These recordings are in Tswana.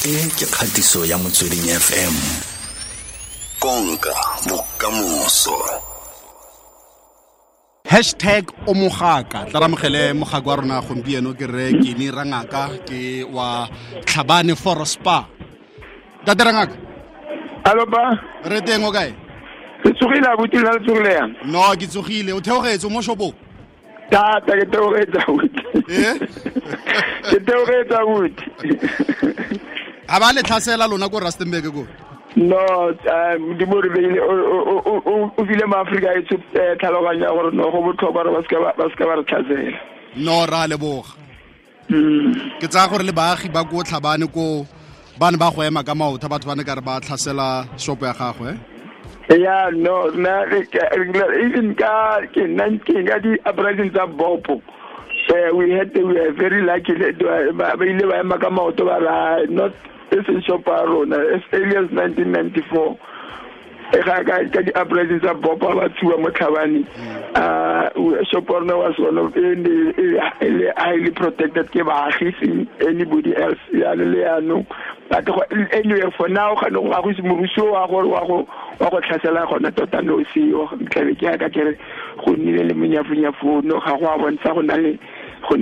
E ke kgatiso ya Motsweding FM. Konka bokamoso. Hashtag o mogaka. Tla ramogele mogaka wa rona gompieno ke re Kenny Rangaka ke wa Tlhabane Forest Spa. Ntate Rangaka. Alo ba. Re teng o kae? Ke tsogile abuti la tsogile yang. No, ke tsogile. O theogetse mo shopong? Tata ke theogetse abuti. Eh? Ke theogetse abuti. A ba le tlhasela lona ko Rustenburg ko? No, Modimo re beile o file maAfrika e tlhaloganya gore no go botlhokwa gore ba seka ba re tlhasela. No, ra leboga. Ke tsaya gore le baagi ba ko Tlhabane ko ba ne ba go ema ka maoto, batho ba ne ka re ba tlhasela shopo ya gagwe. Yeah, no, na even ka ke 19 ka di uprising tsa Bopo. We were very lucky ba ile ba ema ka maoto ba ra not this shop ya rona as early as 1994. Ka di uprising tsa Bopo ba tshuwa mo Tlhabane. Shop ya rona was one of the highly protected ke baagi, anybody else ya le ya no. But anyway, for now ga no ga go moruso wa go tlhasela gona tota no seo tlabe ke ka kere go nnile le monyafunyafo no ga go a bontsha go na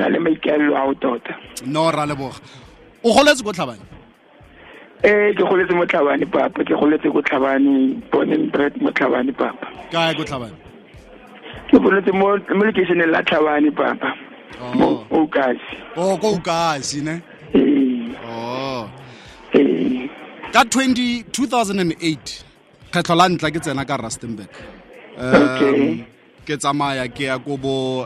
le maikaelelo ao tota. No, ra leboga. O goletse ko Tlhabane? Ke goletse mo Tlhabane papa, ke goletse ko Tlhabane, born and bred mo Tlhabane papa. Kae ko Tlhabane? Ke goletse mo location la Tlhabane papa. Mo Okasi. Oh, ko Okasi ne? Eh. Oh. Eh. Ka 2008 kgetlho la ntla ke tsena ka Rustenburg. Okay. Ke tsamaya ke ya ko bo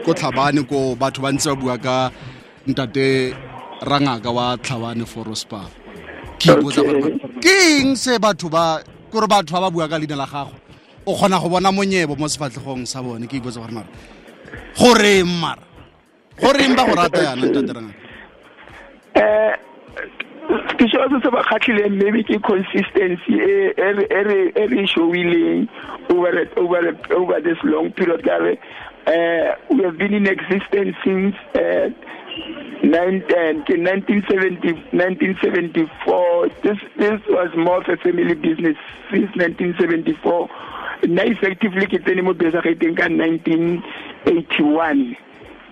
ko Tlhabane ko batho ba ntse ba bua ka ntate Rangaka wa Tlhabane Forest Spa. Ke ipotsa gore ke eng se batho ba gore batho ba bua ka leina la gago. O kgona go bona monyebo mo sefatlhegong sa bone. Ke ipotsa gore mara goreng mara goreng ba go rata yana ntate Rangaka? Ke sho se ba kgatlhileng maybe ke consistency e re showileng over this long period. We have been in existence since 1974. This was more of a family business since 1974. Now effectively ke tsene mo besageteng ka 1981.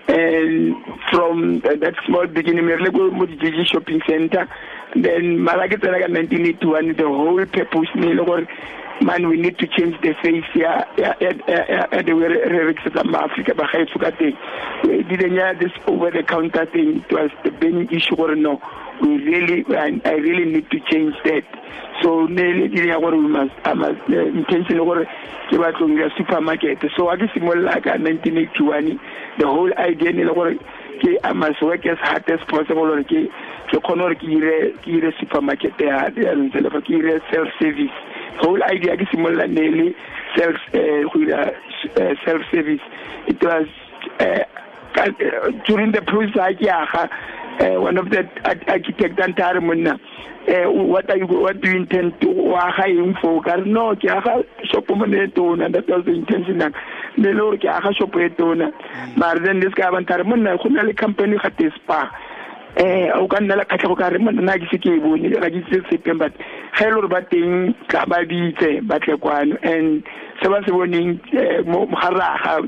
And from that small beginning, we go to the shopping center. Then, Malaki 1981, the whole purpose, man, we need to change the face here. The way Africa, we didn't have this over-the-counter thing. It was the burning issue. No, I really need to change that. So, we must, intention supermarket. So, I guess like 1981, the whole idea I must work as hard as possible. Ke supermarket self-service. Whole idea is self-service. It was during the process, one of the architect and what do you intend to for? No, shop and that was the intention. But then this guy company spa. O ka nna le kgatlhego ka re monna ke se ke e bone ga ke itse sepe, but ga e le gore ba teng tla ba bitse ba tle kwano. And se ba se boneng mo garaga,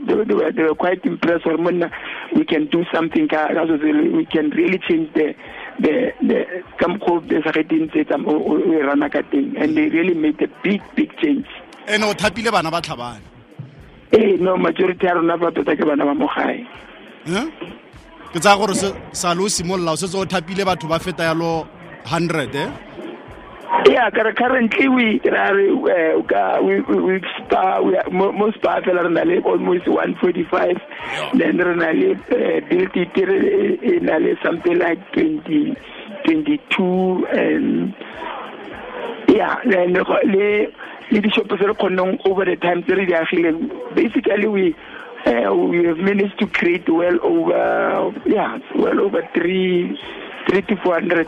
they were quite impressed gore monna we can do something ka so we can really change the ka mokgwa o besageteng tse tsa o e rana ka teng, and they really made a big change. Ene o thapile bana ba Tlhabane? No, majority ya rona ba tota ke bana ba mo gae. Ke tsaya gore sa lo simolola o setse o thapile batho ba feta yalo 100 eh? Yeah, currently we spa we most spa fela re na le almost 145. Then re na le built it na le something like 20 22, and yeah, then le di shop tse re kgonneng over the time tse re di agileng. Basically we have managed to create well over 300 to 400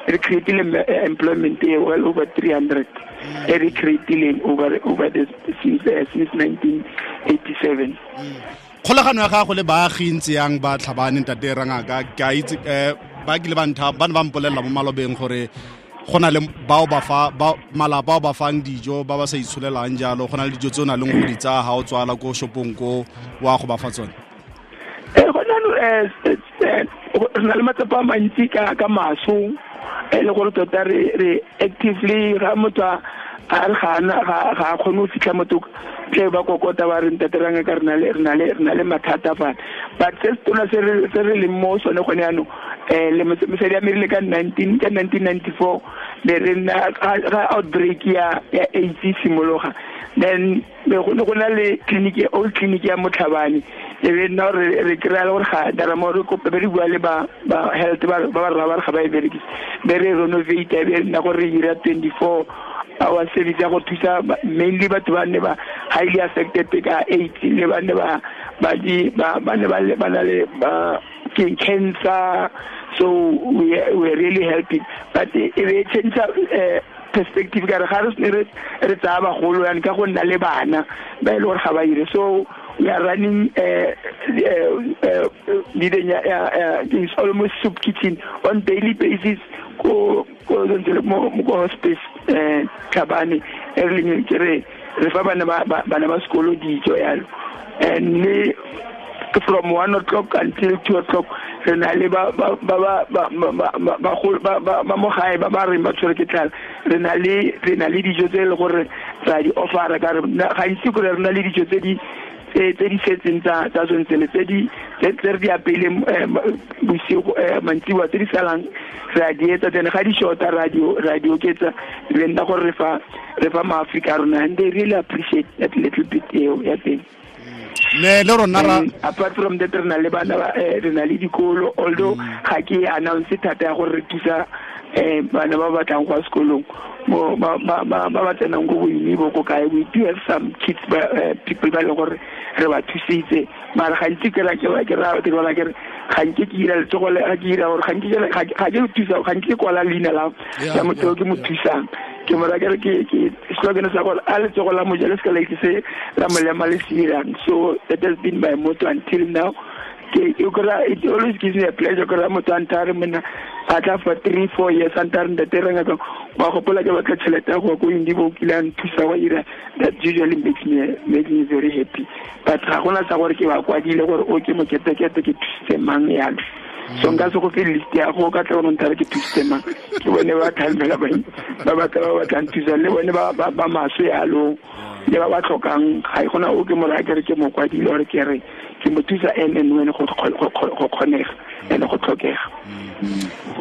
recreating employment, well over 300 recreating over this since 1987. Kgolagano ya gago le baagi ntse yang ba Tlhabane ntate Rangaka, ke a itse ba kile ba ntha ba ne ba mpolelela mo malobeng gore go na le bao ba fa ba malapa ba fang dijo ba ba sa itsholelang jalo, go na le dijo tse o nang le go di tsaya ga o tswala ko shopong ko wa go ba fa tsone. Go na re na le matsapa a mantsi ka maso, e le gore tota re actively ga motho a re ga a kgone go fitlha motho tle ba kokota ba re ntate ranga ka re na le mathata fa. But se tona se re leng mo sone gone jaanong, le mosadi a merile ka 1994 le re nna ga outbreak ya AIDS e simologa, then go ne go na le clinic, old clinic ya Motlhabane, e be nna re kry-a le gore ga dara mo re kope be re bua le ba health ba ba rra ba re ga ba e berekise, be re renovate, e be nna gore re dira 24 hour service ya go thusa mainly batho ba ne ba highly affected ka AIDS, le ba ne ba ba na le cancer. So we are really helping, but e be change perspective ka re ga re re tsaya bagolo yana ka go nna le bana ba e le gore ga ba ire. So we are running it's almost soup kitchen on daily basis ko mo hospice Tlhabane e re leng ke re fa bana ba sekolo dijo yalo, and le from 1 o'clock until 2 o'clock re na le ba mo gae ba ba reng ba tshwere ke tlala, re na le dijo tse e le gore ra di offera ka re gantsi kore re na le dijo tse di setseng tsa tsontsele tse di tse re di apeileng bosigo mantsiboa tse di salang re a di etsa, then ga di shota ra di oketsa, le nna gore re fa maAfrika a rona, and they really appreciate that little bit eo ya teng. Ne le rona ra apart from that re na le bana ba re na le dikolo, although ga ke announce thata ya gore re thusa bana ba batlang go ya sekolong mo ba ba tsenang ko boimibo ko kae, we do have some kids people ba le gore re ba thusitse, mara gantsi ke ra ke ra ke ra ke ga nke ke ira letsogo le ga ke ira gore ga nke ga ke thusa ga nke kwala leina la motho ke mo thusang, ke mo ra ke ke slogan sa gore a letsogo la moja le se ka la itse se la molema le se dirang. So that has been my motto until now. It always gives me a pleasure gore motho a nthare monna a tla for 3-4 years a nthare ntate reng ka wa gopola ke batla tšhelete ya go ya ko Indibo o kile a nthusa wa ira, that usually makes me very happy. But ga gona sa gore ke ba kwadile gore o ke moketekete ke thusitse mang yalo, so nka se go fe list ya go ka tla gore nthare ke thusitse mang, ke bone ba thalmela ba ba batlang thusa le bone ba maswe yalo le ba ba tlhokang, ga e gona o ke mo raya ke re ke mo kwadile gore ke re ke mo thusa and when go kgonega and go tlhokega.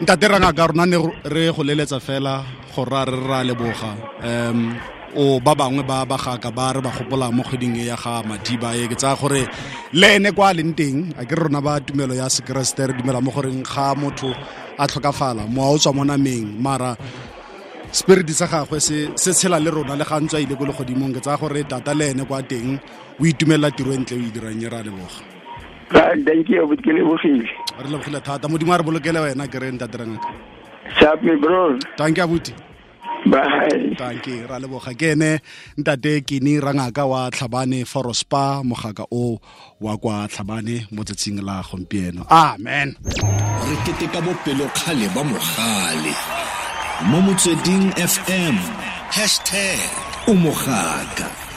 Ntate Rangaka, rona ne re go leletsa fela go ra re ra leboga o ba bangwe ba bagaka ba re ba gopola mo kgweding e ya ga Madiba e, ke tsaya gore le ene kwa leng teng a ke rona ba tumelo ya sekeresete re dumela mo goreng ga motho a tlhokafala mowa o tswa mo nameng, mara spirit sa gagwe se tshela le rona le ga ntse a ile ko legodimong. Ke tsaya gore tata le ene kwa teng o itumelela tiro e ntle o e dirang, e ra leboga. Thank you, ke lebogile. Re lebogile thata, Modimo a re bolokele wena ke re ntate Rangaka. Sharp me bro. Thank you abuti. Bye. Thank you, ra leboga. Ke ene ntate Kini Rangaka wa Tlhabane Forospa, mogaka o wa kwa Tlhabane mo tsatsing la gompieno. Amen. Re keteka bopelokgale ba mogale mo Motsweding FM #o mogaka.